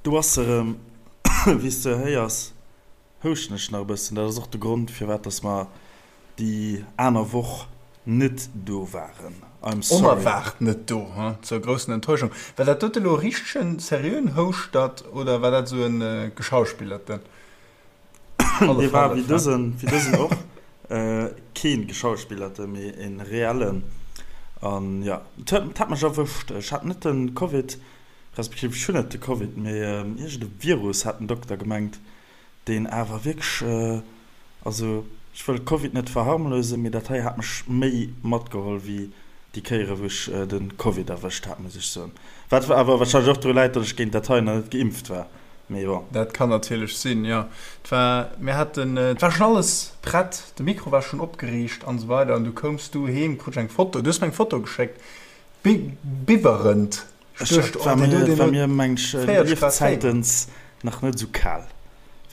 Do ass se erëm. Wéi s de héiers, houschten ech nach e bëssen. Dat ass och de Grond, firwat dass mer déi aner Woch net do waren. I'm sorry. Onerwaart net do, hm? Zur groussen Enttäuschung. War dat dote lo e richtegen, seriöen Houschtert oder war dat esou e geschauspillerten? Dee war wéi dësen, wéi dësen och keen geschauspillerte, mee en reellen. An jo, et huet, et hat mech erwëscht. Ech hat net de Covid, respektiv ech hunn net de Covid, mee iergend e Virus hat den Dokter gemengt, deen awer wierklech, also ech wëll Covid net verharmlosen, mee dat hei hat mech méi matgeholl wéi déi Kéiere wou ech de Covid erwëscht hat, muss ech soen. Wat awer warscheinlech och dru läit, datt ech géint dat hei nach net geimpft war. Mee bon. Dat kann natierlech sinn, jo. Et war, mir haten, et war schonn alles prett, de Mikro war schonn opgeriicht an esou weider an du koums du heem, krut ech eng Foto, du hues mir eng Foto geschéckt, bi biwwerend. Ech duecht, oh, deen huet, deen huet mir, meng ech, 40 Grad Féiwer. Liefzäitens nach net esou kal.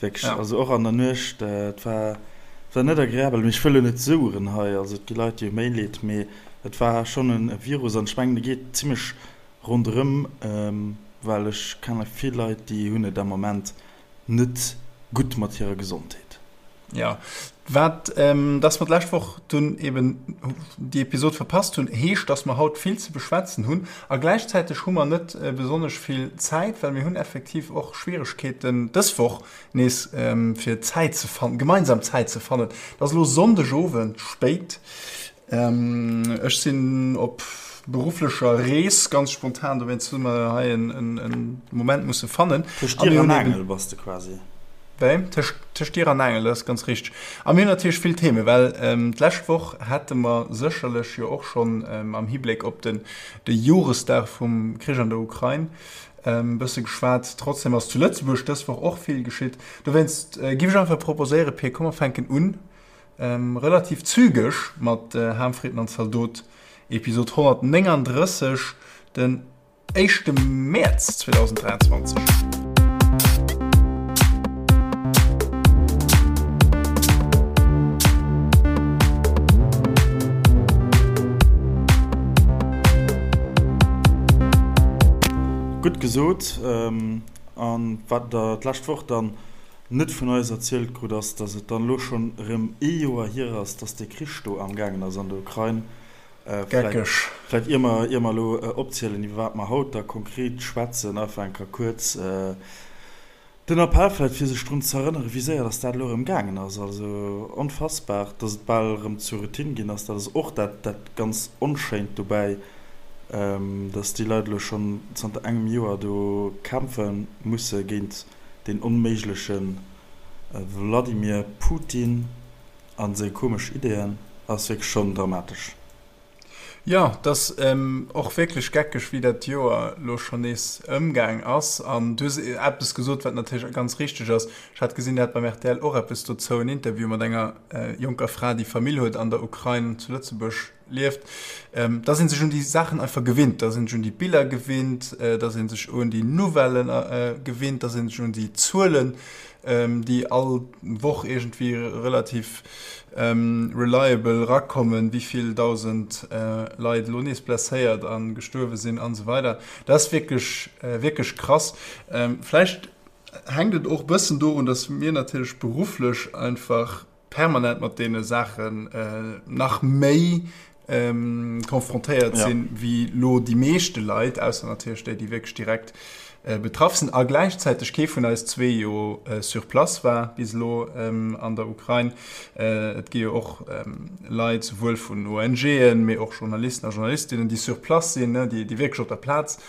Wierklech, ja. Also och an der Nuecht, et war, et war net agreabel. Mee ech wëll elo net soueren hei, also et gi Leit, déi hu méi Leed, mee et war schonn e Virus an ech mengen, e geet zimmlech Ronderëm, well ech kenne vill Leit, déi hunn et am Moment net gutt mat hirer Gesondheet. Jo, wat, dass mer d'lescht Woch dunn eben déi Episod verpasst hunn, heescht, dass mer haut vill ze beschwätzen hunn a gläichzäiteg hu mer net besonnesch vill Zäit, well mir hunn effektiv och Schwieregkeeten dës Woch nees fir Zäit ze fannen, gemeinsam Zäit ze fannen. Et ass elo Sonndegowend spéit. Ech sinn op berufflecher Rees, ganz spontan, dowéinst hu mer hei en Moment musse fannen. Tëscht Dier an Aangel bass de quasi. Wéi? Tëscht Dier an Aangel, dat ass ganz richteg. A mir hunn natierlech vill Themen, well d'lescht Woch hätte mer sécherlech jo och schonn am Hibléck op de Joresdag vum Krich an der Ukrain e bësse geschwat. Trotzdem ass zu Lëtzebuerg dës Woch och vill geschitt. Dowéinst giff ech einfach proposéieren, Pir, komm mer fänken un Relativ zügeg mat Ham, Fritten an Zaldot, Episod 139, den éischte Mäerz 2023. Gutt gesot. An wat der d'lescht Woch dann net vun eis erzielt krut, ass, dass et dann elo schonn erëm ee Joer hier ass, dass dee Krich do amgaangen ass an der Ukrain. Geckeg. Vläicht ier mer, ier mer elo opzielen, iwwer wat mer haut da konkret schwätzen, einfach eng Kéier kuerz den Appell vläicht, fir sech drun ze erënneren, wéi séier dass dat elo erëm gaangen ass. Also onfassbar, dass et bal erëm zur Routine ginn ass. Dat ass och dat, dat ganz Onschéint dobäi, dass déi Leit elo schonn zanter engem Joer do kämpfe musse géint Deen onméigleche Wladimir Putin a seng komesch Ideeën ass wierklech schonn dramatesch. Jo, et ass och wierklech geckeg, wéi dat Joer elo schonn nees ëmgaang ass. An du hues eppes gesot, wat natierlech ganz richteg ass. Ech hat gesinn, der hat beim rtl och eppes dozou, en Interview mat enger jonker Fra, déi Famill huet an der Ukrain, zu Lëtzebuerg lieft, dass ee sech un déi Saachen einfach gewinnt, dass ee sech un déi Biller gewinnt, dass ee sech un déi Nouvellen gewinnt, dass ee sech un déi Zuelen, déi all Woch iergendwéi relativ reliable erakommen, wéi vill 1.000 Leit elo nees blesséiert a gestuerwe sinn an esou weider. Dat ass wierklech, wierklech krass. Vläicht hänkt et och e bëssen dorun, dass mir natierlech berufflech einfach permanent mat deene Saachen nach méi konfrontéiert sinn, wéi lo déi meeschte Leit, ausser natierlech déi, déi wierklech direkt betraff sinn. A gläichzäiteg kee vun eis zwee jo sur place war bis elo an der Ukrain. Et gi jo och Leit, souwuel vun ONGen, mee och Journalisten a Journalistinnen, déi sur place sinn, déi wierklech op der Plaz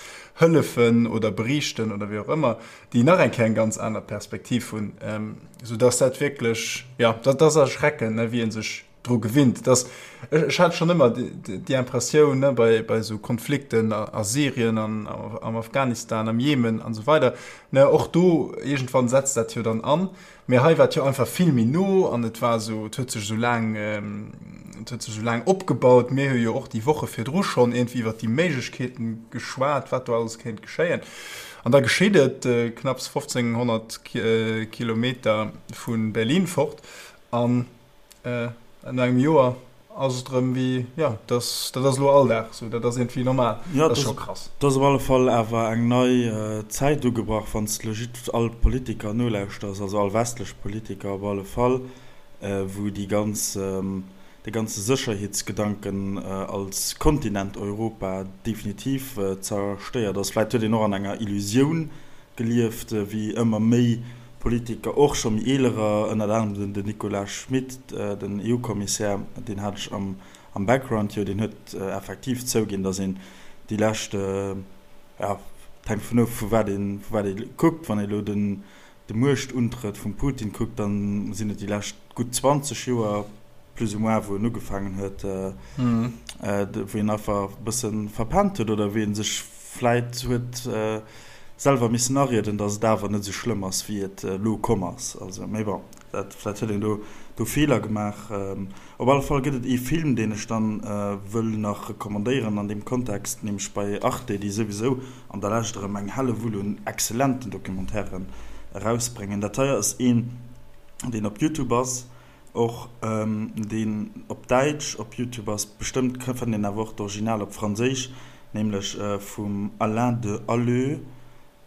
hëllefen oder beriichten oder wéi och ëmmer. déi nach eng Kéier eng ganz aner Perspektiv hunn, sou dass dat wierklech, jo, dat ass erschreckend, ne, wéi ee sech dru gewinnt. Dass, ech hat schonn ëmmer déi Impressioun, ne, bei, bei esou Konflikten a Syrien an am Afghanistan, am Jemen an esou weider, ne, och do iergendwann setzt dat jo dann an. Mee hei war et jo einfach vill méi no an et war esou, et huet sech esou laang, et huet sech esou laang opgebaut. Mir hu jo och déi Woche virdru schonn iergendwéi iwwert déi Méiglechkeeten geschwat, wat do alles kéint geschéien. An da geschitt et, knapps 1.500 Kilometer vu Berlin fort an no engem Joer. Ass et erëm wéi, jo, dat ass elo Alldag esou, dat ass iergendwéi normal. Jo, dat ass scho krass. Et ass op alle Fall awer eng nei Zäit ugebrach, wann s de legit all Politiker nolauschters, also all westlech Politiker op alle Fall, wou déi ganz, de ganze Sécherheetsgedanken als Kontinent Europa definitiv zerstéiert ass. Vläit huet een och an enger Illusioun gelieft, wéi ëmmer méi Politiker, och scho méi eelerer, ënnert anerem den Nicolas Schmit, den EU-Kommissär, deen hat ech am Background jo, deen huet effektiv zouginn, datt een déi lescht, jo, et hänkt vun of, vu wat ee vu wat ee kuckt, wann ee elo den de Muechtuntrëtt vum Putin kuckt, da sinn et déi lescht gutt 20 Joer plus ou moins, wou en ugefaangen huet, wou een einfach e bësse verpennt huet oder wou ee sech vläit huet selwer missen arieden, datt et awer net esou schlëmm ass, wéi et elo komm ass. Also, mee bon, dat, vläit huet een do do Feeler gemaach. Op alle Fall gëtt et ee Film, deen ech dann wëll nach recommandéieren an deem Kontext, nämlech bei Arte, déi souwisou an der Lescht erëm eng Hellewull un excellenten Documentairen erausbréngen. Dat hei ass een, deen op Youtube ass, och deen op Däitsch op Youtube ass, bestëmmt fënnt een awer och d'Original op Franséisch, nämlech vum Alain de Halleux,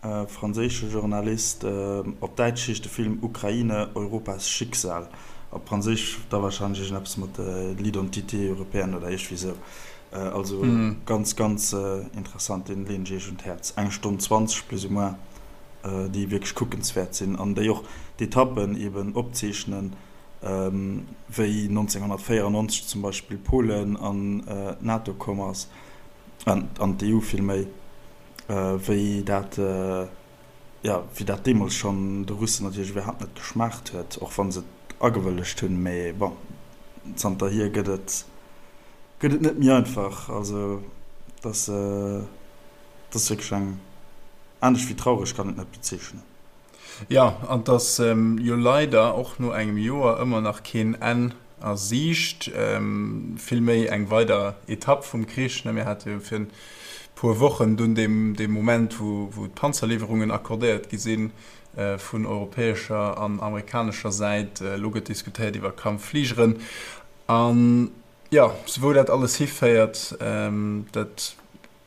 franséische Journalist. Op Däitsch heescht de Film Ukraine, Europas Schicksal, op Franséisch da warscheinlech iergendeppes mat L'identité européenne oder iergendwéi sou. Also ganz, ganz interessant, deen leen ech iech un d'Häerz. Eng Stonn 20 plus ou moins. déi wierklech kuckenswäert sinn an déi och d'Etappen eben opzeechnen, wéi 1994 zum Beispill Polen an d'NATO komm ass, an d'EU villméi, wéi dat, jo, wéi dat deemools schonn de Russen natierlech iwwerhaapt net geschmaacht huet, och wa se et agewëllegt hunn. Mee bon, zanterhier gëtt et, gëtt et net méi einfach. Also, dass. Et ass wierklech eng, anescht wéi traureg kann et net bezeechnen. Jo, an et ass jo leider och no engem Joer ëmmer nach keen Enn a Siicht, vill méi eng weider Etapp vum Krich. Mir hate jo fir e puer Wochen dunn dee Moment, wou d'Panzerliwwerungen accordéiert gi si vun europäescher an amerikanescher Säit. Elo gëtt diskutéiert iwwer Kampffligeren. An jo, wou dat alles hiféiert, dat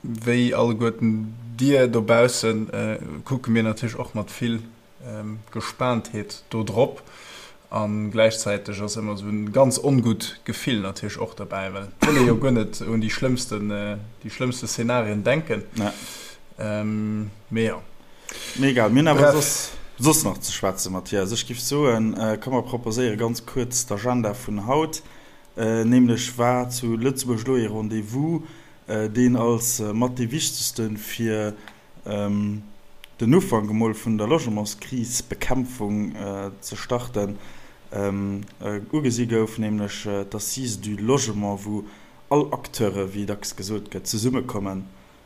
Wéi alleguerten dir dobaussen kucke mir natierlech och mat vill Gespaantheet do drop. A gläichzäiteg ass ëmmer esou en ganz ongutt Gefill natierlech och derbäi, well et wëll ee jo guer net un déi schlëmmsten, déi schlëmmste Szenarien denken. Mee jo. Mee egal, mir hunn awer soss, soss nach ze schwätzen, Mathias. Ech giff soen, komm mer proposéiere ganz kuerz d'Agenda vun haut. Nämlech war zu Lëtzebuerg elo ee Rendez-vous, deen als mat dee wichtegste fir den Ufank emol vun der Logementskrisbekämpfung ze starten, ugesi gouf, nämlech d'Assises du logement, wou all Acteure, wéi dacks gesot gëtt, zesummekommen,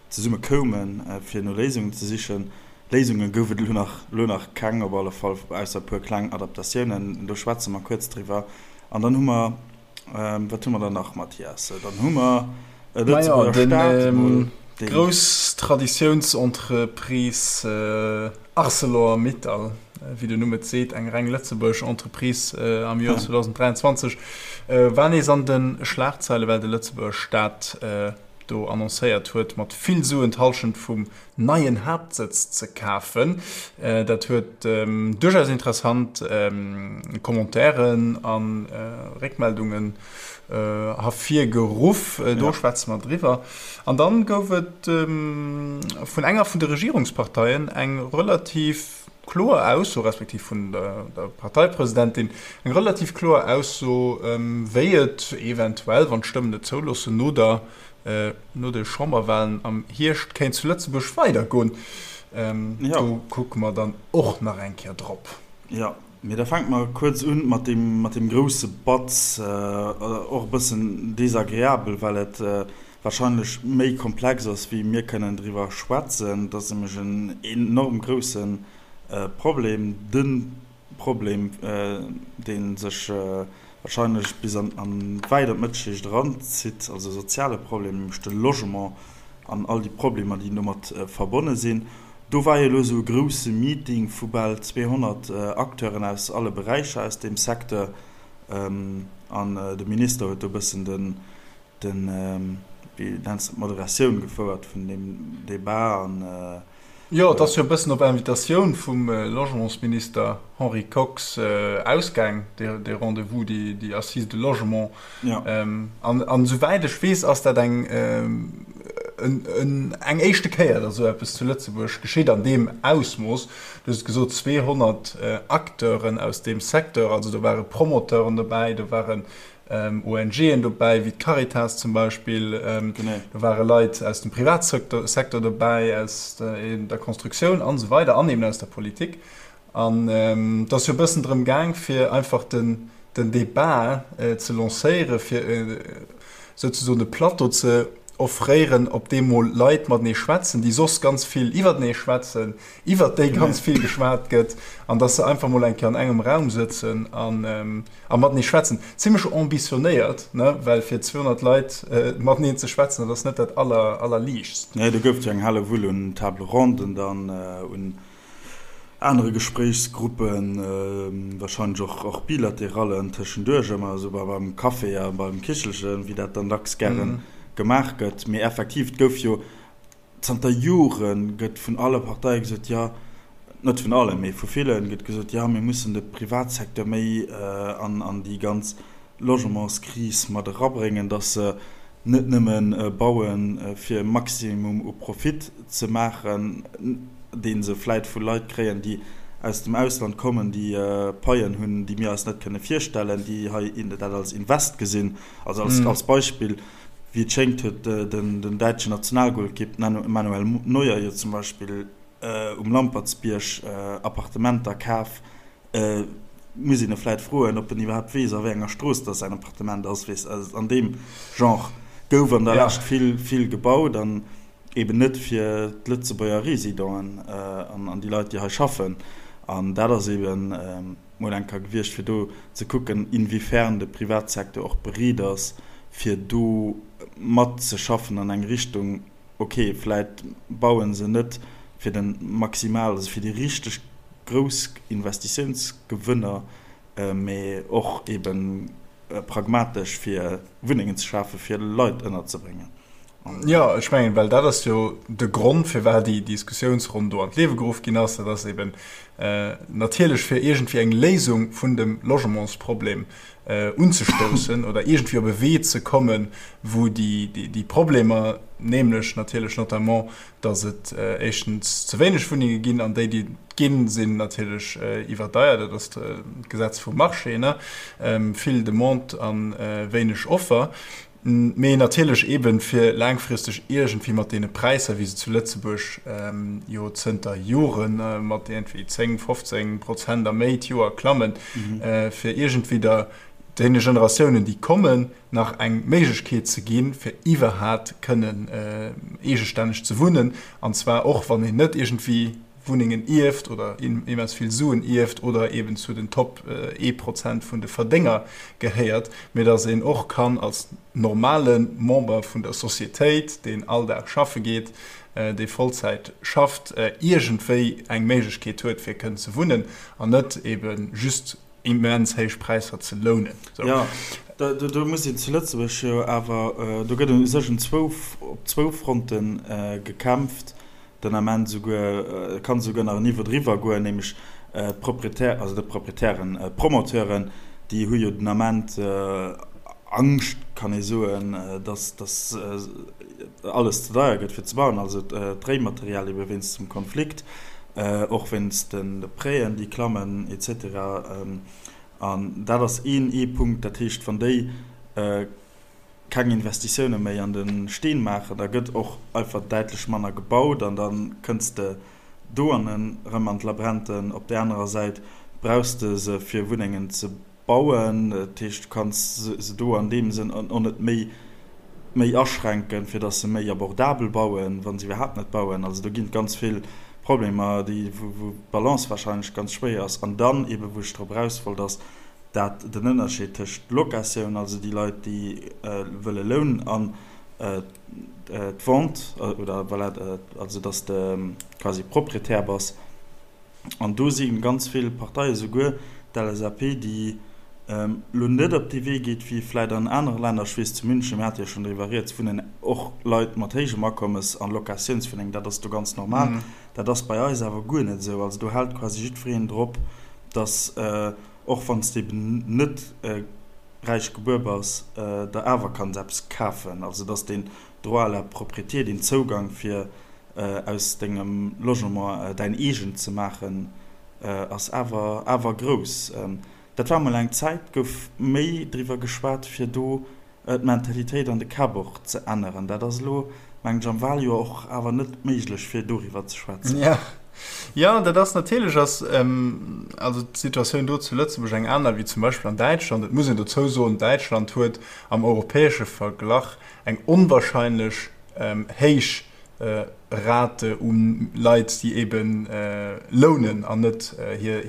zesummekoumen, fir no Léisungen ze sichen. Léisunge gouf et elo nach, elo nach keng, op alle Fall, ausser e puer kleng Adaptatiounen. Do schwätze mer kuerz driwwer. An dann hu mer Wat hu mer dann nach, Mathias? Dann hu mer e Lëtzebuerger Staat emol, deen. D'grouss Traditiounsentreprise Arcelor-Mittal, wéi den Numm et seet, eng reng lëtzebuergesch Entreprise am Joer 2023, war nees an de Schlagzeile, well de Lëtzebuerger Staat do annoncéiert huet, mat vill Suen d'Hallschent vum neien Haaptsëtz ze kafen. Dat huet duerchaus interessant Commentairen a Réckmeldungen hervirgeruff. Do schwätze mer driwwer. An dann gouf et vun enger vun de Regierungsparteien eng relativ kloer Ausso, respektiv vun der Parteipresidentin eng relativ kloer Ausso, wéi et eventuell, wann d'Stëmmen et zouloossen, no der no de Chamberwahlen am Hierscht kéint zu Lëtzebuerg weidergoen. Do kucke mer dann och nach eng Kéier drop. Jo, mee da fänke mer kuerz un mat deem, mat deem grousse Batz, och e bëssen desagreabel, well et warscheinlech méi komplex ass, wéi mir kënnen driwwer schwätzen. Et ass nämlech en enorm grousse Problem, de Problem, dee sech wahrscheinlech bis an wäit an d'Mëttelschicht eranzitt, also e soziale Problem, nämlech de Logement an all déi Problemer, déi domat verbonne sinn. Do war jo elo esou e grouse Meeting vu bal 200 Acteuren aus alle Beräicher aus deem Secteur. An de Minister huet do e bëssen den, den, wéi nenns de et, d'Moderatioun gefouert vun deem Debat an. Jo, et ass jo e bëssen op Invitatioun vum Logementsminister Henri Kox ausgaang, dee Rendez-vous, déi Assises de logement. An esouwäit ech weess, ass dat eng eng éischte Kéier, datt esou eppes zu Lëtzebuerg geschitt an deem Ausmooss. Du hues et gesot, 200 Acteuren aus deem Secteur, also do ware Promoteuren dobäi, do waren ONGen dobäi, wéi d'Caritas zum Beispill. Do ware Leit aus dem Privatsecteur dobäi, aus der Constructioun an esou weider an eben aus der Politik. An et ass jo e bëssen drëm gaang, fir einfach den Debat ze lancéieren, fir souzesoen e Plateau ze offréieren, op deem mol Leit matenee schwätzen, déi soss ganz vill iwwertenee schwätzen, iwwert déi ganz vill geschwat gëtt, an dass se einfach mol eng Kéier an engem Raum sëtzen an a matenee schwätzen. Zimmlech ambitionéiert, ne, well fir 200 Leit mateneen ze schwätzen, dat ass net dat aller, allerliichtst. Nee, do gouf et jo eng helle Wull un Table ronden dann, un anere Gespréichsgruppen, wahrscheinlech och, och Bilaterallen tëschenduerch, ëmmer esou beim Café a beim Kichelchen, wéi dat dann dacks gäre gemaach gëtt. Mee effektiv, et gouf jo Zanter Jore gëtt vun alle Parteie gesot, jo, net vun allen, mee vu villen gëtt gesot, jo, mir mussen de Privatsecteur méi an déi ganz Logementskris mat erabréngen, datt se net nëmme bauen, fir e Maximum u Profit ze maachen, dee se vläit vu Leit kréien, déi aus dem Ausland kommen, déi Paien hunn, déi mir eis net kënne virstellen, déi hei dat als Invest gesinn. Also als Beispill. Wéi et schéngt huet den däitschen Nationalgolkipp Manuel Neuer jo zum Beispill um Lampertsbierg Appartementer kaf. Muss een e vläit froen, ob en iwwerhaapt weess, a wéi enger Strooss dass säin Appartement ass. Weess, an deem Genre gouf an der Lescht vill, vill gebaut an eben net fir d'Lëtzebuerger Residenten an déi Leit, déi hei schaffen. An dat ass eben. mol eng Kéier gewiescht, fir do ze kucken, inwiefern de Privatsecteur och bereet ass, fir do matzeschaffen an eng Richtung, okay, vläit baue se net fir de maximal, also fir déi richteg grouss Investitiounsgewënner, mä och ebe pragmatesch, fir Wunnengen ze schafen, fir Leit ënnerzebréngen. Jo, ech mengen, well dat ass jo de Grond, firwat déi Diskussiounsronn do an d'Liewe geruff ginn ass. Dat ass eben natierlech, fir iergendwéi eng Léisung vun dem Logementsproblem unzestoussen oder iergendwéi op e Wee ze kommen, wou déi Problemer, nämlech natierlech notamment, datt et éischtens ze wéineg Wunnenge ginn an déi, déi et ginn, sinn natierlech iwwerdeiert, dat ass d'Gesetz vum Marché, ne, vill Demande a wéineg Offer. Mee natierlech eeben, fir laangfristeg iergendwéi mat deene Präisser, wéi se zu Lëtzebuerg jo zënter Jore mat iergendwéi 10, 15 Prozent a méi d'Joer klammen, fir iergendwéi der deene Generatiounen, déi kommen, nach eng Méiglechkeet ze ginn, fir iwwerhat kënnen eegestänneg ze wunnen, an zwar och wann een net iergendwéi Wunnengen ierft oder immens vill Suen ierft oder eben zu den Top ee Prozent vun de Verdénger gehéiert, mee datt een och kann als normale Member vun der Societéit, deen all Dag schaffe geet, dee Vollzäit schafft, iergendwéi eng Méiglechkeet huet fir kënnen ze wunnen an net ebe just immens héich Präisser ze lounen. Jo, do muss een zu Lëtzebuerg jo awer, do gëtt u sech op zwou Fronte gekämpft. den Ament esouguer, et kann esouguer nach en Niveau driwwer goen, nämlech d'Propriétaires, also net d'Proprietären, d'Promoteuren, déi hu jo den Ament Angscht, kann ee soen, dass dass alles ze deier gëtt fir ze bauen, also d'Réimaterial ebe wéinst dem Konflikt, och wéinst de Prêten, déi klammen et cetera. An dat ass een ee Punkt, dat heescht, wann déi keng Investitioune méi an de Steen maachen, da gëtt och einfach däitlech manner gebaut an da kënns de do an en erëm an d'Labränten. Op där anerer Säit brauchs de se fir Wunnengen ze bauen, dat heescht du kanns se do an deem Sënn och net méi méi aschränken, fir datt se méi abordabel bauen, wa se iwwerhaapt net bauen. Also do ginn et ganz vill Problemer, déi wou d'Balance wahrscheinlech ganz schwéier ass. An dann eebe wou ech drop eraus wollt ass, dat den Ënnerscheed tëscht Locatioun, also déi Leit, déi wëlle lounen, an d'Vente, oder voilà, also dass de quasi Proprietär bass. An do si ganz vill Parteien, souguer d'LSAP, déi. Elo net op dee Wee geet wéi vläit an anere Länner. Ech weess zu München, mir hate jo schonn driwwer rieds, wunnen och Leit mat héijem Akommes an Locatiounswunnengen. Dat ass do ganz normal. Dat ass bei eis awer guer net esou. Also do hält quasi jiddwereen drop, datt och wann s de eben net räich gebuer bass, der awer kanns eppes kafen. Also datt deen Droit à la propriété, deen Zougang fir aus dengem Logement däin eegent ze maachen, ass awer awer grouss. Dat war mol eng Zäit, gouf méi driwwer geschwat, fir do d'Mentalitéit an de Käpp och ze änneren. Dat ass elo, mengen ech, am Waljoer och awer net méiglech, fir doriwwer ze schwätzen. Jo, jo, dat ass natierlech ass also d'Situatioun do zu Lëtzebuerg eng aner wéi zum Beispill an Däitschland. Et muss een dozou soen, Däitschland huet am europäesche Verglach eng onwahrscheinlech héich Rate u Leit, déi ebe lounen an net hir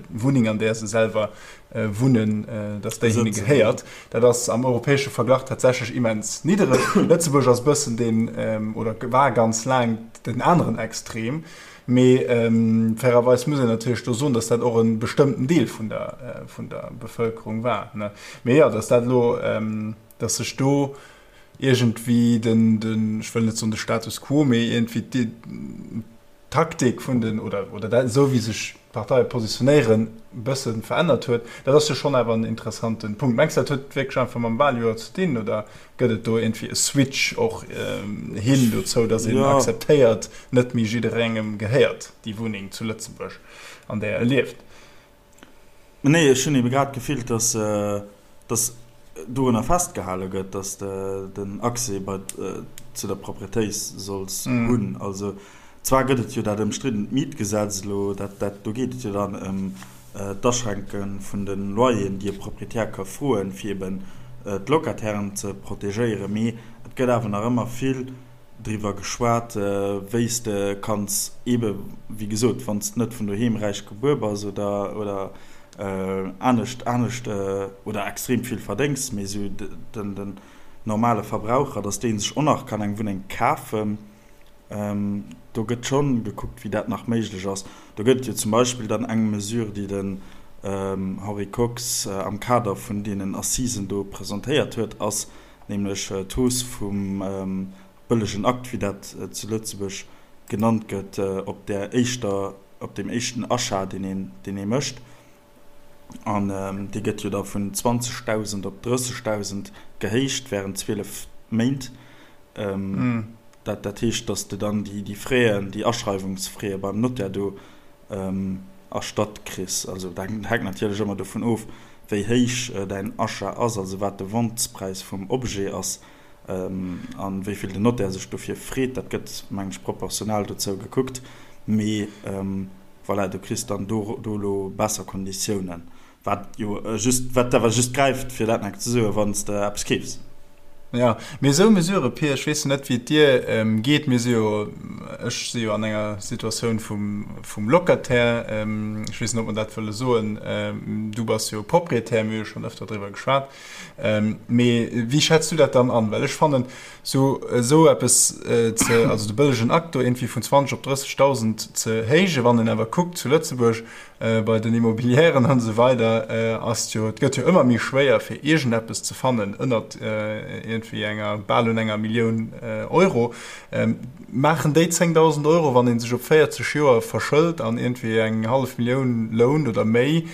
Wunneng, an där se selwer wunnen, datt déi hinne gehéiert. Dat ass am europäesche Verglach tatsächlech immens niddereg. Lëtzebuerg ass e bëssen deen, oder war ganz laang den aneren Extrem. Mee fairerweis muss een natierlech do soen, datt dat och e bestëmmten Deel vun der Bevëlkerung war. Mee jo, datt dat elo, datt sech do iergendwéi den, den, ech wëll net soen de Status quo, mee iergendwéi d'Taktik vun den, oder, oder dat, esou wéi sech d'Parteie positionéieren, e bësse verännert huet, dat ass jo schonn awer en interessante Punkt. Mengs de, dat huet wierklech einfach mam Waljoer ze dinn oder gëtt et do iergendwéi e Switch och hin dozou, datt een akzeptéiert, net méi jidderengem gehéiert déi Wunneng zu Lëtzebuerg, an där e lieft? Nee, ech hunn ebe grad d'Gefill, dass, dass dorunner festgehale gëtt, dass de den Accès bei, zu der Propriétéit solls hunn. Also zwar gëtt et jo dat ëmstriddent Mietgesetz elo, dat, dat, do geet et jo dann ëm d'Aschränke vun de Loyeren, déi e Proprietär ka froen, fir eben d'Locatairen ze protegéieren, mee et gëtt awer nach ëmmer vill driwwer geschwat, wéi s de kanns eebe wéi gesot, wann s de net vun doheem räich gebuer bass oder oder anescht anescht oder extrem vill verdéngs, mee esou den den normale Verbraucher, datt dee sech och nach kann eng Wunneng kafen. Do gëtt schonn gekuckt, wéi dat nach méiglech ass. Do gëtt et jo zum Beispill dann eng Mesure, déi den Henri Kox am Kader vun deenen Assisen do presentéiert huet, ass, nämlech d'Hausse vum bëllegen Akt, wéi dat zu Lëtzebuerg genannt gëtt, op där éischter, op deem éischten Achat, deen een, deen ee mécht. An dee gëtt jo da vun 20.000 op 30.000 gehéicht während 12 Méint. Dat, dat heescht, datt s de dann déi, déi Fräen, déi Aschreiwungsfräe beim Notaire do erstatt kriss. Also dat hänkt natierlech ëmmer dovun of, wéi héich däin Achat ass, also wat de Ventespräis vum Objet ass a wéi vill den Notaire sech dofir freet. Dat gëtt, mengen ech, proportional dozou gekuckt. Mee voilà, du kriss dann do elo besser Konditiounen. Wat jo just, wat awer just gräift, fir dat nach ze soen, wann s de eppes keefs. Jo, mee esou Mesurë, Pir, ech weess jo net, wéi et dir geet, mir si jo, ech si jo an enger Situatioun vum, vum Locataire, ech weess net, ob mer dat wëlle soen, du bass jo Proprietär, mir hu jo schonn ëfter driwwer geschwat, mee wéi schätz du dat dann an? Well ech fannen, esou, esou eppes ze, also de bëllegen Akt do iergendwéi vun 20 op 30.000 ze héijen, wann een awer kuckt zu Lëtzebuerg, Bei den Immobilièren an esou weider ass et jo, et gëtt jo ëmmer méi schwéier fir iergendeppes ze fannen ënnert iergendwéi enger, bal un enger Millioun Euro. Maachen déi 10.000 Euro, wann ee sech op 40 Joer verschëlt an iergendwéi eng hallef Millioun lount oder méi,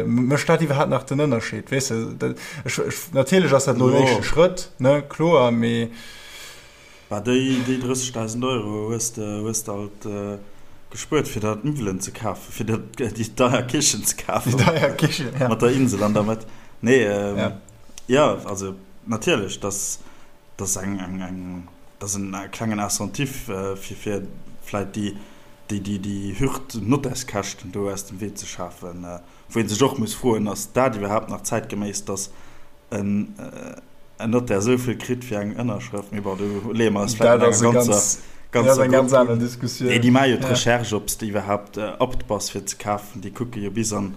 mécht dat iwwerhaapt nach den Ënnerscheed? Weess de, ech, natierlech ass dat elo en éischte Schrëtt, ne, kloer, mee. Bah, déi 30.000 Euro hues de hues de alt gespuert fir der d'Miwwelen ze kafen, fir der déi deier Kichen ze kafen. Déi deier Kichen, ja. Mat der Insel an der Mëtt. Nee, jo, also natierlech, dass dass eng eng eng dass en klengen Incentif fir fir vläit déi déi déi déi Hürd Nottärskäschten do aus dem Wee ze schafen. Wou ee sech och muss froen, ass dat iwwerhaapt nach zäitgeméiss, dass en Notaire esou vill kritt fir eng Ënnerschrëft? Mee bon, do leeë mer eis vläicht an enger ganzer ganz aner Diskussioun. Nee, déi maache jo d'Recherche, ob s de iwwerhaapt apte bass fir ze kafen. Déi kucke jo bis an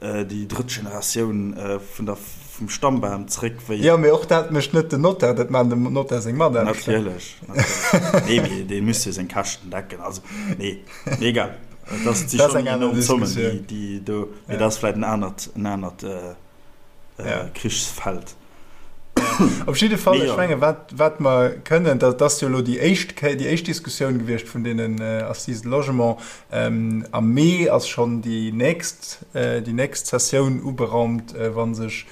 déi drëtt Generatioun vun der, vum Stammbam zréck, wéi. Jo, mee och dat mécht net den Notaire, dat maachen dem Notaire seng Mataarbechter. Natierlech, natierlech. Nee, mee dee muss jo seng Käschten decken. Also, nee, mee egal. Dat si schonn enorm Zommen, déi do, mee dat ass vläicht en anert, en anert. Krichsfeld. Op jidde Fall, ech menge wat, wat mer kënnen, dat ass jo elo déi éischt Kéier, déi éischt Diskussioun gewiescht vun deenen Assises de Logement. Am Mee ass schonn déi nächst, déi nächst Sessioun uberaumt, wa sech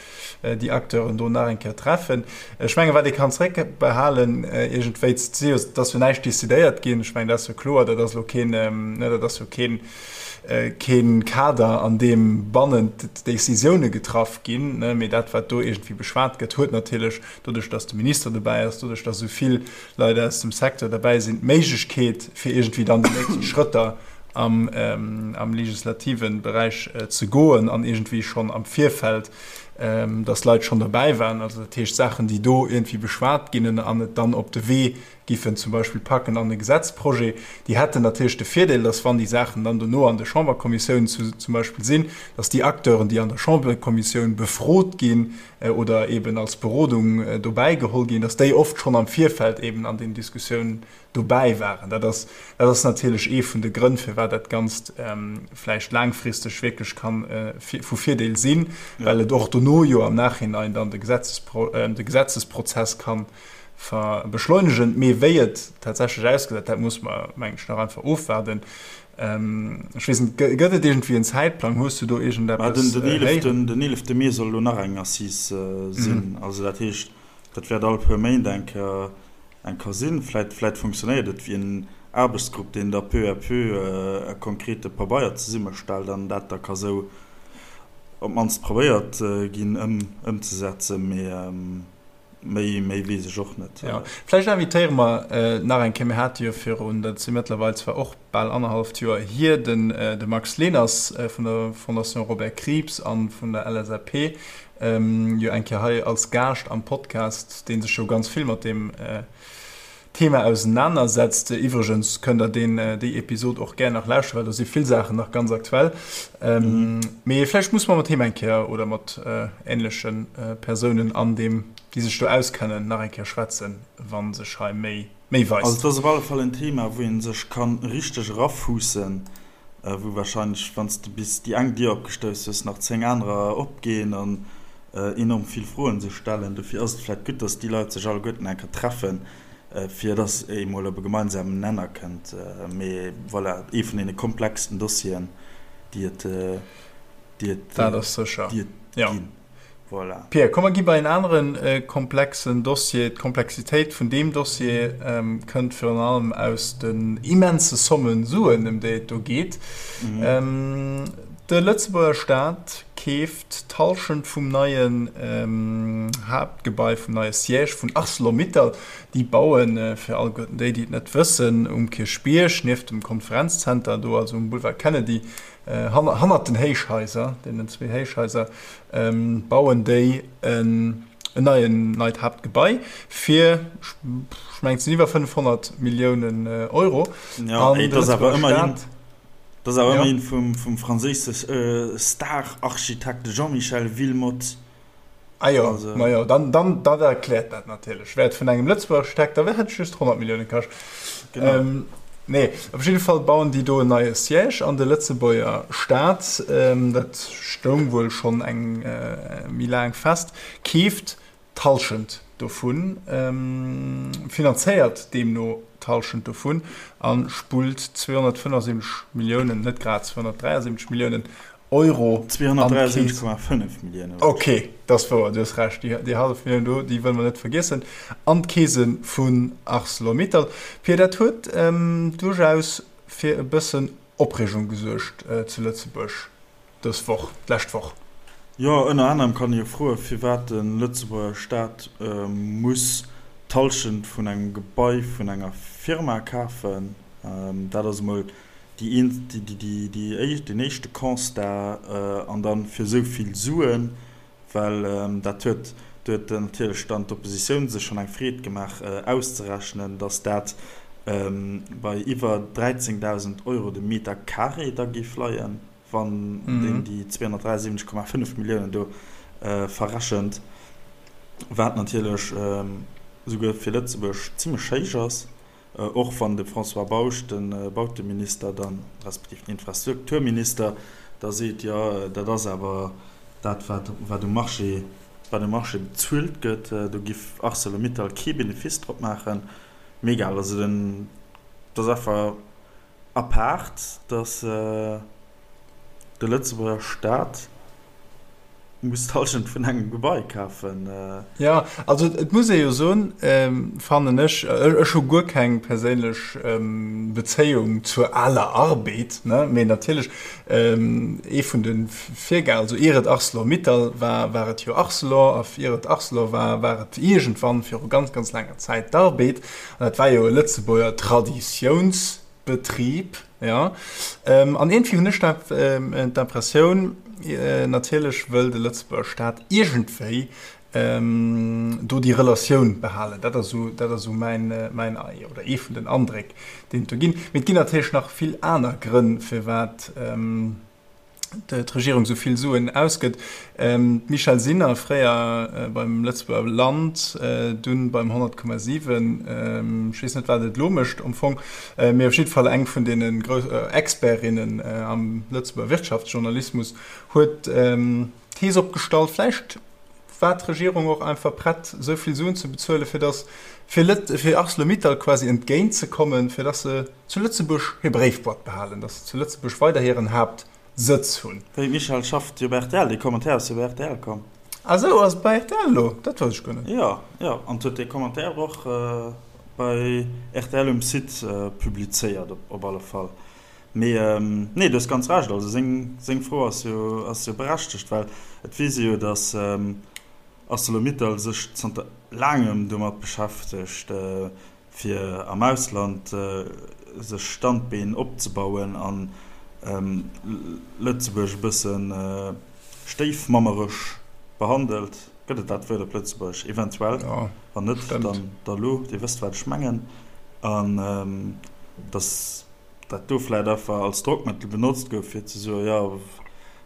déi Acteuren do nach eng Kéier treffen. Ech menge wat ee kann zréckbehalen iergendwéi, et ass jo näischt decidéiert ginn, ech mengen dat ass jo kloer, dat ass elo keen, ne, dat ass jo keen, kee Kader, an deem bannent d'Décisioune getraff ginn, mee dat, wat do iergendwéi beschwat gëtt, huet natierlech, doduerch datt de Minister dobäi ass, doduerch datt esou vill Leit aus dem Secteur derbäi sinn, d'Méiglechkeet, fir iergendwéi dann déi nächst Schrëtter am, am legislative Beräich ze goen an iergendwéi schonn am Virfeld, datt Leit schonn derbäi waren, also dat heescht Saachen, déi do iergendwéi beschwat ginn an et dann op de Wee giffen zum Beispill packen an e Gesetzprojet, déi hätten natierlech de Virdeel, dass wann déi Saachen dann dono an de Chamberkommissiounen zum Beispill sinn, dass déi Acteuren, déi an der Chamberkommissioun befrot ginn oder eben als Berodung dobäi geholl ginn, dass déi oft schonn am Virfeld eben an den Diskussiounen dobäi waren. Dat ass, dat ass natierlech ee vun de Grënn, firwat dat Ganzt vläicht laangfristeg wierklech ka vu Virdeel sinn, well et och dono jo am Nachhinein dann de Gesetzesprozess kann beschleunegen. Mee wéi et tatsächlech ausgesäit, dat muss mer, mengen ech, nach einfach ofwaarden. Ech weess net, gëtt et iergendwéi en Zäitplang? Hues du do iergendeppes héieren? Den eelefte Mee soll elo nach eng Assise sinn. Also dat heescht, dat wäert all puer Méint eng Kéier eng Kéier sinn. Vläit, vläit funktionéiert et wéi en Aarbechtsgrupp, deen da peu à peu e konkrete Pabeier zesummestellt an dat da ka sou op d'mannst probéiert ginn ëmzesetzen. Mee Méi, méi weess ech och net. Jo, vläicht invitéiere mer nach eng Kéier, mir hate jo virun, dat si mëttlerweil zwar och bal annerhalleft Joer hier, den de Max Leners vun der Fondation Robert Krieps a vun der LSAP jo eng Kéier hei als Gaascht am Podcast, dee sech jo ganz vill mat deem Thema ausenanersetzt. Iwwregens kënnt der deen, déi Episod och gär nach lauschteren, well do si vill Saachen nach ganz aktuell. Mee vläicht musse mer mat him eng Kéier oder mat änleche Persounen an deem, déi sech do auskennen, nach eng Kéier schwätzen, wa sech hei méi, méi weist. Also et ass op alle Fall en Thema, wou ee sech ka richteg erafuussen, wou wahrscheinlech, wann s de bis déi eng Dier opgestouss hues, nach 10 anerer opginn an enorm vill Froen sech stellen. Dofir ass et vläicht gutt, dass déi Leit sech alleguerten eng Kéier treffen, fir dass ee mol op e gemeinsamen Nenner kënnt. Mee voilà, ee vun deene komplexsten Dossieren, déi et, déi et, Dat ass sécher, déi et jo. ginn. Voilà. Pia, komm mer gi bei en anere komplexen Dossier. D'Komplexitéit vun deem Dossier kënnt virun allem aus den immense Somme Suen, ëm déi et do geet. De Lëtzebuerger Staat keeft d'Hallschent vum neien Haaptgebai, vum neie Siège vun Arcelor-Mittal. Déi bauen, fir alleguerten déi, déi et net wëssen, um Kierchbierg, nieft dem Konferenzzenter do, also um Boulevard Kennedy, hannert den Héichhaiser, deenen zwee Héichhaiser, bauen déi en neien, neit Haaptgebai fir, ech mengen, et sinn iwwer 500 Milliounen Euro. Jo, an et ass awer ëmmerhin, et ass awer ëmmerhin vum, vum franséische Star-Architekt Jean-Michel Wilmotte. Ah jo, also, ma jo, dann, dann, dat erkläert dat natierlech. Wär et vun engem Lëtzebuerger Architekt, da wär et just 100 Millioune kascht. Genau. Ähm, nee, op jidde Fall bauen déi do en neie Siège an de Lëtzebuerger Staat, ähm, dat stoung wuel schonn eng äh, méi laang fest, keeft d'Hallschent dovun, ähm, finanzéiert deemno d'Hallschent dovun a spullt 275 Milliounen, net grad 273 Milliounen Euro. 273,5 Milliounen. Ok, dat ass wouer, du hues Recht. Déi hallef Millioun do, déi wëlle mer net vergiessen. An d'Keese vun Arcelor-Mittal. Pia, dat huet duerchaus fir e bëssen Opreegung gesuergt zu Lëtzebuerg dës Woch, d'lescht Woch. Jo, ënner anerem kann ee jo froen, firwat de Lëtzebuerger Staat muss d'Hallschent vun engem Gebai vun enger Firma kafen. Dat ass emol déi deen éischte Constat an dann fir esou vill Suen, well dat huet, do huet natierlech dann d'Oppositioun sech schonn eng Freed gemaach auszerechnen, datt dat bei iwwer 13.000 Euro de Meter carré da géif leien, wann een déi 273,5 Milliounen do verrechent, wat natierlech esouguer fir Lëtzebuerg zimmlech héich ass. Och wann de François Bausch, de Bauteminister dann, respektiv den Infrastrukturminister, da seet, jo dat ass awer. Dat wat wat um Marché wat um Marché bezuelt gëtt, do giff Arcelor-Mittal kee Benefice drop maachen. Mee egal, also den, et ass einfach apaart, datt de Lëtzebuerger Staat muss d'Hallschent vun engem Gebai kafen. Jo, also et muss ee jo soen, fannen ech, ech hu guer keng perséinlech Bezéiung zur aler Arbed, ne, mee natierlech ee vun de Virgänger, also ier et Arcelor-Mittal war, war et jo Arcelor, a ier et Arcelor war, war et iergendwann viru ganz, ganz laanger Zäit d'Arbed, an dat war jo e Lëtzebuerger Traditiounsbetrib, jo. An iergendwéi hunn ech d'Impressioun, natierlech wëll de Lëtzebuerger Staat iergendwéi do déi Relatioun behalen. Dat ass esou, dat ass esou mäin, mäin oder ee vun den Andréck, deen et do ginn. Mee et ginn natierlech nach vill aner Grënn, firwat d'Regierung esou vill Suen ausgëtt. D'Michèle Sinner, fréier beim Lëtzebuerger Land, dunn beim 100,7, ech weess net, wat et elo mécht am Fong, mee op jidde Fall eng vun deene grouss Expertinnen am Lëtzebuerger Wirtschaftsjournalismus, huet d'Thees opgestallt, vläicht war d'Regierung och einfach prett, esou vill Suen ze bezuelen, fir datt, fir Lët, fir Arcelor-Mittal quasi entgéint ze kommen, fir datt se zu Lëtzebuerg hir Bréifboîte behalen, datt se zu Lëtzebuerg weider hiren Haaptsëtz hunn. Wéi, Michèle, schafft jo bei rtl? Dee Commentaire ass jo bei rtl komm. Ah sou, ass et bei rtl elo? Dat wousst ech guer net. Jo, jo, an huet dee Commentaire och bei rtl um Site publizéiert, op alle Fall. Mee nee, du hues ganz Recht. Also seng, seng Fro ass jo, ass jo berechtegt, well et weess ee jo, datt Arcelor-Mittal sech zanter laangem domat beschäftegt, fir am Ausland sech Standbeen opzebauen an Lëtzebuerg e bësse stéifmammeresch behandelt. Gëtt et dat Wuert op Lëtzebuergesch? Eventuell. Wann net, dann da lo. Dir wësst, wat ech mengen. An datt dat do vläicht einfach als Drockmëttel benotzt gouf, fir ze soen, jo,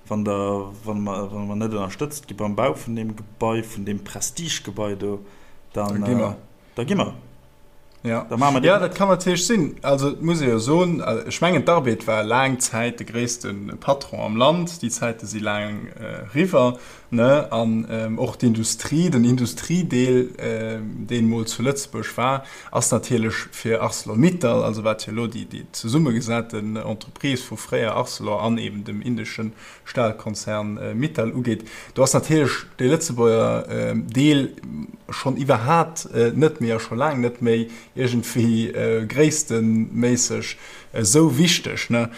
wann der, wa mer, wa mer net ënnerstëtzt gi beim Bau vun deem Gebai, vun deem Prestigegebai do, dann, da gi mer. Da gi mer. Ja. Da maache mer déi. Ja, dat kann natierlech sinn. Also, et muss ee jo soen, ech mengen, d'Arbed war laang Zäit de gréisste Patron am Land. Déi Zäite si laang eriwwer. Ne? An och d'Industrie, den Industriedeel, deen emol zu Lëtzebuerg war, ass natierlech fir Arcelor-Mittal, also wat jo elo déi zesummegesaten Entreprise vu fréier Arcelor an eben dem indesche Stahlkonzern Mittal ugeet, do ass natierlech dee Lëtzebuerger Deel schonn iwwerhat net méi a scho laang net méi iergendwéi gréissteméisseg esou wichteg, ne,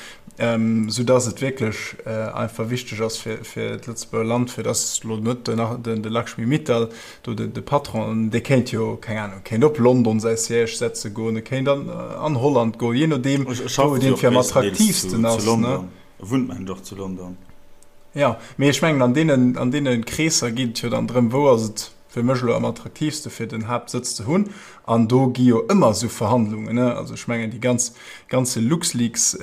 sou dass et wierklech einfach wichteg ass fir fir d'Lëtzebuerger Land, fir dass elo net den de Lakshmi Mittal do de de Patron, dee kéint jo, keng Ahnung, kéint op London säi Siège setze goen, e kéint an an Holland goen, jee nodeem wou et iergendwéi am attraktiivsten ass, ne. E wunnt mengen ech och zu London. Jo, mee ech mengen an deenen an deene Kreesser geet et jo dann drëm, wou ass et fir mech elo am attraktiivste fir den Haaptsëtz ze hunn an do gi jo ëmmer esou Verhandlungen, ne, also ech mengen déi ganz ganze LuxLeaks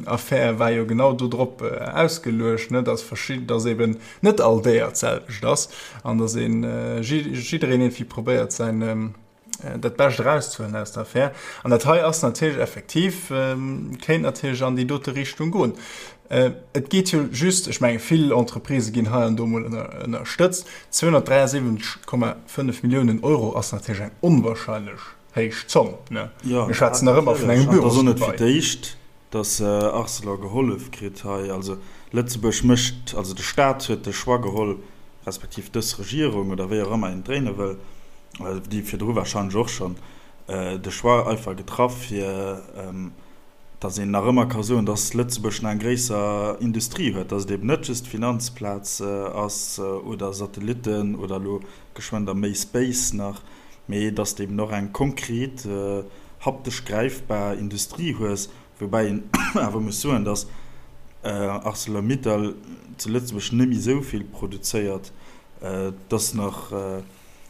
Affär war jo genau do drop ausgeluecht, ne, dass verschidden, dass eben net all Déier d'selwecht ass an dass een jiddereen iergendwéi probéiert säin dat Bescht erauszehuelen aus der Affär. An dat hei ass natierlech effektiv, kéint natierlech an déi dote Richtung goen. Et geet jo just, ech menge vill Entreprisë ginn hei an do emol ënnerstëtzt. 273,5 Milliounen Euro ass natierlech eng onwahrscheinlech héich Zomm, ne? Mir schwätzen nach ëmmer vun engem Bürosgebai. Jo, natierlech. An et ass och net fir d'éischt, datt Arcelor gehollef kritt hei. Also Lëtzebuerg mécht, also de Staat huet de Choix geholl, respektiv dës Regierung oder wéi och ëmmer een et dréine wëll, déi virdru warscheinlech och schonn, de Choix einfach getraff fir, datt een nach ëmmer ka soen, datt Lëtzebuerg nach eng gréisser Industrie huet, datt et eben net just d'Finanzplaz ass oder Satellitten oder elo geschwënn da méi Space nach, mee datt s de eben och eng konkret, haptesch gräifbar Industrie hues, woubäi een awer muss soen, datt Arcelor-Mittal zu Lëtzebuerg net méi esou vill produzéiert, datt nach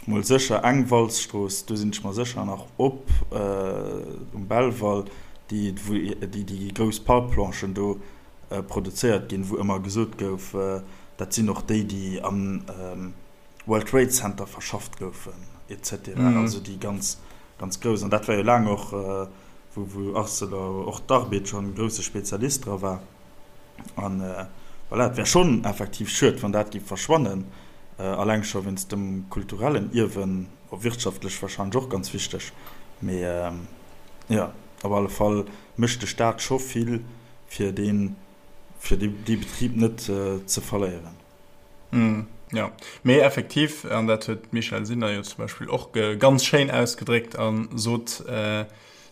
Mol sécher eng Walzstrooss, do sinn ech mer sécher, nach op um Belval, déi wou déi déi grouss Palplanchen do produzéiert ginn, wou ëmmer gesot gouf, dat sinn och déi, déi am World Trade Center verschafft goufen et cetera, also déi ganz ganz grouss. An dat war jo laang och, wou wou Arcelor, och d'Arbed schonn e grousse Spezialist dra war. An. Voilà, et wär schonn effektiv schued, wann dat géif verschwannen, alleng scho wéinst dem kulturellen Ierwen, wirtschaftlech warscheinlech och ganz wichteg. Mee jo, op alle Fall mécht de Staat scho vill, fir dee fir dee Betrib net ze verléieren. Jo, mee effektiv, an dat huet d'Michèle Sinner jo zum Beispill och ganz schéin ausgedréckt a sot,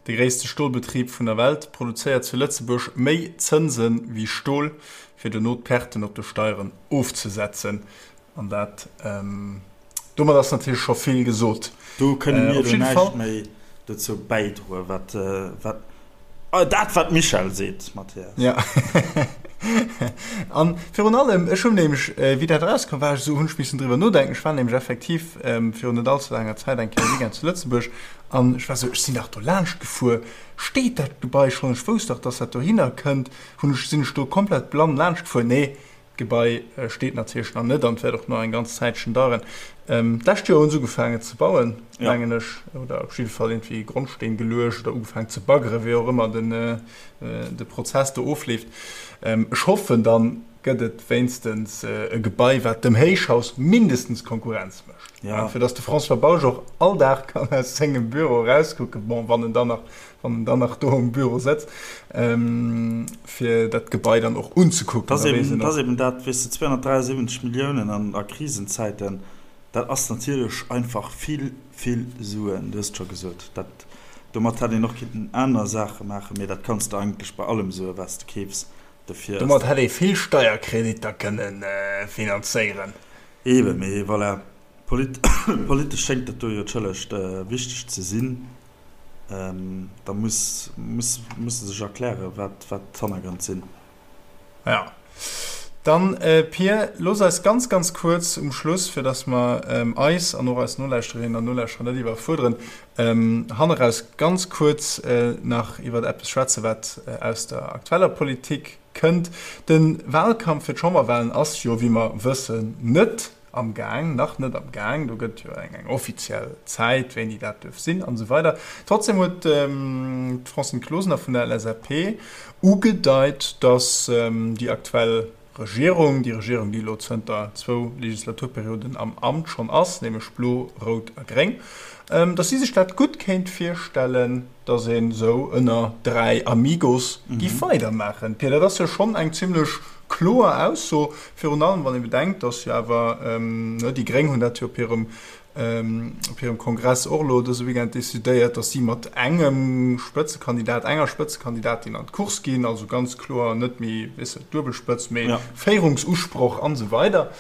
De gréisste Stolbetrib vun der Welt produzéiert zu Lëtzebuerg méi Zënse wéi Stol, fir dono d'Perten op de Steieren ofzesetzen. An dat, domat ass natierlech scho vill gesot. Do kënne mir elo näischt méi dozou bäidroen, wat, wat, dat wat d'Michèle seet, Mathias. Jo. An virun allem, ech hunn nämlech, wéi dat erauskoum, war ech esou, hunn ech missen driwwer nodenken. Ech war nämlech effektiv virun net allze laanger Zäit eng Kéier e Weekend zu Lëtzebuerg An ech war sou, ech sinn dach do laanscht gefuer, steet dat Gebai schonn? Ech wousst dach, dass dat dohinner kënnt. Hunn ech, sinn ech do komplett blann laanscht gefuer? Nee, d'Gebai steet natierlech nach net an et wäert och nach eng ganz Zäitchen daueren. D'lescht Joer hunn se ugefaangen ze bauen, mengen ech, oder op jidde Fall iergendwéi Grondsteen geluecht oder ugefaangen ze baggeren, wéi och ëmmer den, de Prozess do ofleeft. Ech hoffen, dann gëtt et wéinstens e Gebai, wat dem Héichhaus mindestens Konkurrenz mécht, ja. fir datt de François Bausch och all Dag kann aus sengem Büro erauskucken, bon, wann en dann nach, wann en dann nach do um Büro sëtzt, ähm, fir dat Gebai dann och unzekucken. Dat ass eben, dat ass eben dat, weess de, 273 Milliounen an a Krisenzäiten, dat ass natierlech einfach vill, vill Suen, du hues et scho gesot. Dat, domat hätt een och kinnten aner Saache maachen, mee dat kanns de eigentlech bei allem soen, wat s de keefs. Dofir ass Domat hätt ee vill Steierkreditter kënne finanzéieren. Eeben, mee voilà, politesch schéngt dat do jo d'schëllegt wichteg ze sinn. Da muss muss se sech erklären, wat d'Hannergrënn sinn. Jo. Dann, Pir, looss eis ganz, ganz kuerz um Schluss, fir datt mer eis an och eis Nolauschterinnen an Nolauschterer net iwwerfuerderen, Hanneraus ganz kuerz nach iwwer eppes schwätzen, wat aus der aktueller Politik kënnt. De Wahlkampf fir d'Chamberwahlen ass jo, wéi mer wëssen, net am Gaang, nach net am Gaang. Do gëtt jo eng offiziell Zäit, wéini dat duerf sinn an esou weider. Trotzdem huet d'Francine Closener vun der LSAP ugedeit, datt déi aktuell Regierung, déi Regierung, déi elo zënter zwou Legislaturperioden am Amt schonn ass, nämlech Blo, Rout a Gréng, datt si sech dat gutt kéint virstellen, datt een esou ënner 3 Amigos géif weidermaachen. Pia, dat ass jo schonn eng zimlech kloer Ausso, virun allem wann ee bedenkt, datt jo awer, déi Gréng hunn dat jo op hirem op hirem Kongress och elo dëse Weekend decidéiert, datt si mat engem Spëtzekandidat, enger Spëtzekandidatin an d'Course ginn, also ganz kloer net méi, weess de, Duebelspëtz, mee ja. Féierungsusproch an esou weider.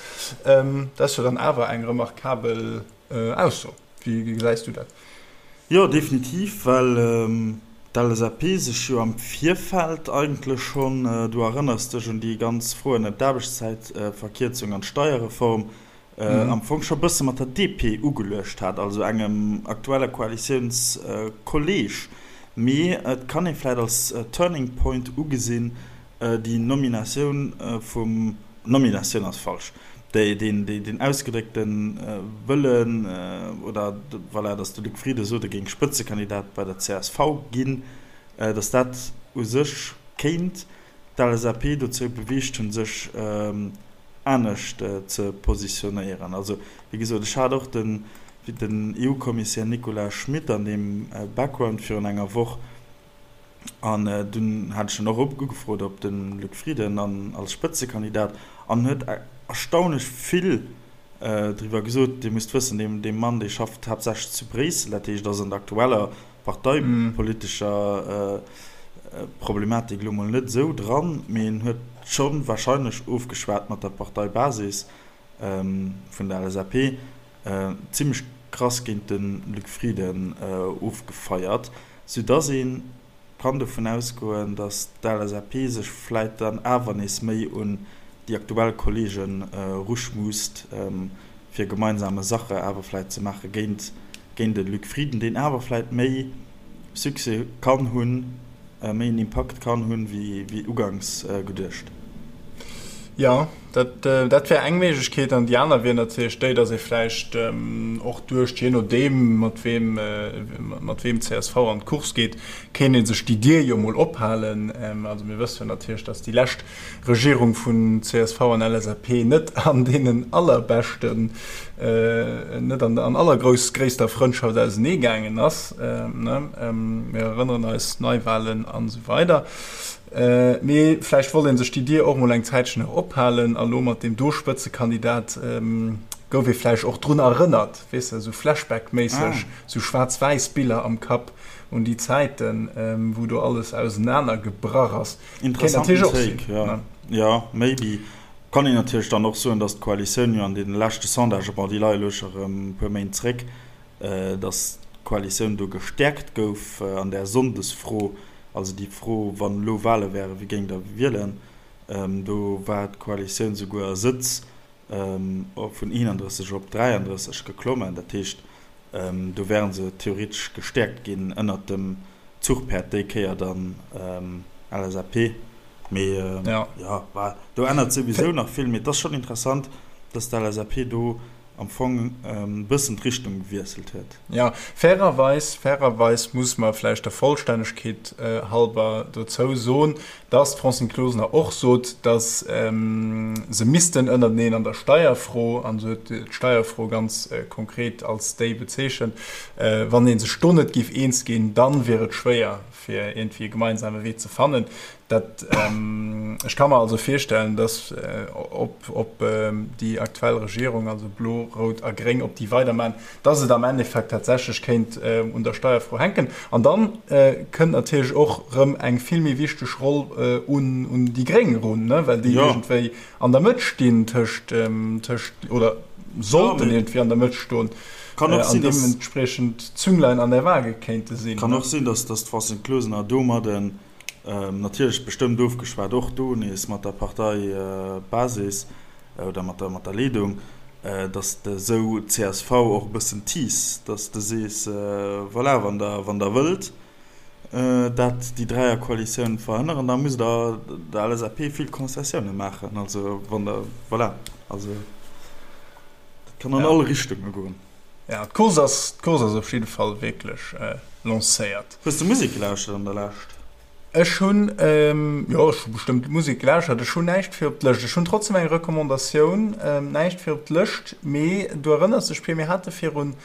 Ähm, dat ass jo dann awer eng remarkabel äh, Ausso. Wéi gesäis du dat? Jo, definitiv, well ähm, d'LSAP sech jo am Virfeld eigentlech schonn, äh, du erënners dech un déi ganz Froen ëm d'Aarbechtszäitverkierzung an d'Steierreform, am Fong scho bësse mat der DP ugeluecht hat, also engem aktuelle Koalitiounskolleeg. Mee et kann ee vläit als Turning Point ugesinn, déi Nominatioun vum, Nominatioun ass falsch, deen ausgedréckte Wëllen, oder voilà, datt de Luc Frieden sot, e géing Spëtzekandidat bei der csv ginn, datt dat u sech kéint d'LSAP dozou beweegt hunn, sech anescht ze positionéieren. Also, wéi gesot, ech hat och den EU-Kommissär Nicolas Schmit an deem Background virun enger Woch an dunn hat ech en och ugefrot op de Luc Frieden als Spëtzekandidat an en huet erstaunlech vill driwwer gesot. Dir musst wëssen, dee Mann, dee schafft haaptsächlech zu Bréissel, dat heescht, ass an der aktueller parteipolitescher Problematik elo mol net esou dran, mee en huet scho warscheinlech ofgeschwat mat der Parteibasis vun der LSAP, zimmlech krass géint de Luc Frieden ofgefeiert, soudass ee kann dovun ausgoen, datt d'LSAP sech vläit dann awer nees méi un déi aktuell Kolleegen eruschmuusst, fir gemeinsame Sache awer vläit ze maache géint géint de Luc Frieden, deen awer vläit méi Succès kann hunn, méi en Impakt kann hunn, wéi uganks geduecht. Jo, dat, dat wär eng Méiglechkeet. An déi aner wier natierlech déi, datt ee vläicht och duecht, jee nodeem, mat weem, mat weem csv an d'Course geet, kéint ee sech déi Dier jo mol ophalen. Also mir wësse jo natierlech, datt déi lescht Regierung vun csv an LSAP net an deenen allerbeschten, net an an allergrouss gréisster Frëndschaft ausenee gaangen ass. Mir erënneren eis, Neiwahlen an esou weider. Mee vläicht wollt ee sech déi Dier och mol eng Zäitchen nach ophalen a lo mat deem do Spëtzekandidat gouf ee vläicht och drun erënnert, weess de, esou Flashback-méisseg, esou schwaarz-wäiss Biller am Kapp un déi Zäiten, wou do alles ausenaner gebrach ass. Kéint natierlech och sinn, ne? Jo, maybe. Kann een natierlech dann och soen, datt d'Koalitioun jo an deene leschte Sondagë, bon, déi leie lo scho rëm e puer Méint zréck, datt d'Koalitioun do gestäerkt gouf an där Sonndesfro, also déi Fro, wann elo Wale wären, wie géingt Der wielen, do war d'Koalitioun souguer a Sëtz vun 31 op 33 geklommen. Dat heescht, do wäre se theoretesch gestäerkt ginn ënnert dem Zuchpäerd, déi Kéier dann LSAP. Mee jo, do ännert souwisou nach vill. Mee et ass schonn interessant, datt d'LSAP do am Fong e bëssen d'Richtung gewiesselt huet. Jo, fairerweis, fairerweis muss mer vläicht der Vollstännegkeet halber dozou soen, dass d'Francine Closener och sot, dass se missten ënnerteneen an der Steierfro, an se huet d'Steierfro ganz konkret als déi bezeechent, wann ee sech do net géif eens ginn, dann wier et schwéier, fir iergendwéi e gemeinsame Wee ze fannen. Dat, ech ka mer also virstellen, dass ob, ob déi aktuell Regierung, also Blo, Rout a Gréng, ob déi weidermachen, dass et am Endeffekt tatsächlech kéint un der Steierfro hänken. An dann kënnt natierlech och erëm eng vill méi wichteg Roll un, un déi Gréng erun, ne, well déi iergendwéi an der Mëtt stinn tëscht, tëscht, oder sollten iergendwéi an der Mëtt stoen an deementspriechend d'Zünglein an der Waage kéinte sinn. Kann och sinn, dass d'Francine Closener domadden, natierlech bestëmmt ofgeschwat, och do nees mat der Parteibasis oder mat der, mat der Leedung, dass de esou d'CSV och e bëssen tease, dass de sees, voilà, wann Der, wann Der wëllt, dat déi Dräierkoalitioun verhënneren, da musst Der der LSAP vill Konzessioune maachen. Also wann Der, voilà, also dat kann an all Richtunge goen. Ja, d'Course ass, d'Course ass op jidde Fall wierklech lancéiert. Hues de Musek gelauschtert an der Lescht? Ech hunn, jo, ech hu bestëmmt Musek gelauschtert. Ech hunn näischt fir op d'Lëscht. Ech hunn trotzdem eng Recommandatioun, näischt fir op d'Lëscht, mee du erënners dech, Pir, mir hate virun,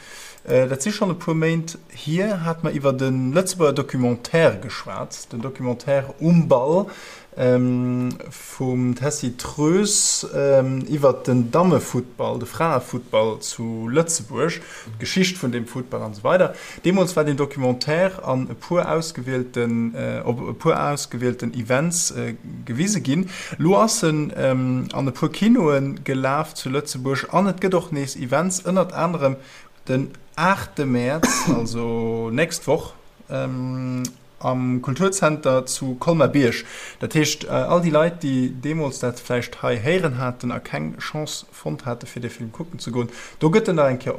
dat si schonn e puer Méint hier, hate mer iwwert e Lëtzebuerger Documentaire geschwat, den Documentaire Um Ball vum Tessy Troes iwwert den Dammefuttball, de Fraefuttball zu Lëtzebuerg, d'Geschicht vun deem Futtball an esou weider. Deemools war deen Documentaire an e puer ausgewielten, op e puer ausgewielten Events gewise ginn. Lo ass en an e puer Kinoe gelaf zu Lëtzebuerg an et gëtt och nees Events, ënnert anerem den aachte Mäerz, also nächst Woch, am Kulturzenter zu Colmer-Bierg. Dat heescht, all déi Leit, déi deemools dat vläicht hei héieren haten a keng Chance fonnt hate fir dee Film kucken ze goen, do gëtt en nach eng Kéier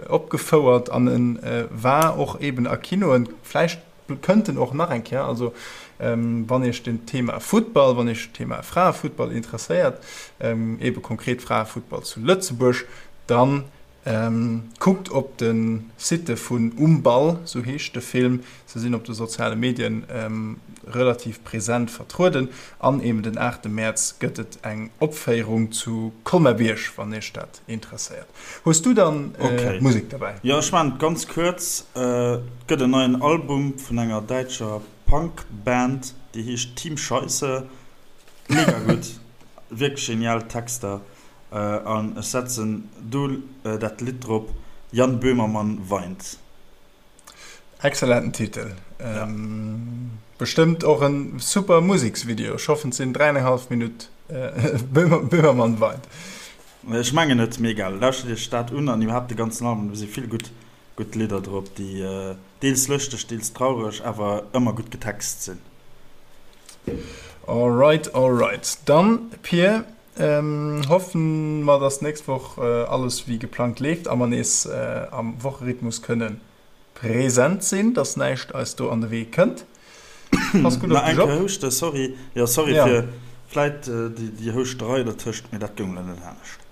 opgefouert an e war och eben a Kinoen. Vläicht kënnt en och nach eng Kéier. Also wann Iech den Thema Futtball, wann Iech d'Thema Fraefuttball interesséiert, ebe konkret Fraefuttball zu Lëtzebuerg, dann Kuckt op de Site vun Um Ball, sou heescht de Film. Se sinn op de soziale Medien relativ present vertrueden. An eben den 8 Mäerz gëtt et eng Opféierung zu Colmer-Bierg, wann iech dat interesséiert. Hues du dann Musek derbäi? Jo, ech maachen et ganz kuerz. Et gëtt en neien Album vun enger däitscher Punk-Band, déi heescht Team Scheisse. Mega gutt, wierklech genial Texter. An ech setzen do dat Lidd drop, Jan Böhmermann weint. Excellenten Titel. Bestëmmt och en super Museksvideo. Ech hoffen et sinn 3,5 Minutt Böhmermann weint. Ech mengen et, mee egal. Lauschtert iech dat un an iwwerhaapt de ganzen Album, do si vill gutt gutt Lidder drop, déi deels lëschteg, deels traureg, awer ëmmer gutt getext sinn. Alright, alright. Dann Pir, Hoffen mer dass nächst Woch alles wéi geplangt leeft a mer nees am Wocherhythmus kënnen present sinn, dass näischt eis do an de Wee kënnt. Pass gutt op dech op. Nach eng Kéier houschten, sorry. Jo, sorry fir. Vläit déi Houschterei dertëscht, mee dat goung elo net anescht.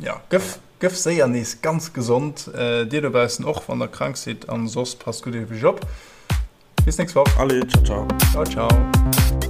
Jo, gëff, gëff séier nees ganz gesond. Dir dobaussen och, wann der krank sidd, an soss passt gutt op iech op. Bis nächst Woch. Allez, ciao, ciao. Ciao, ciao.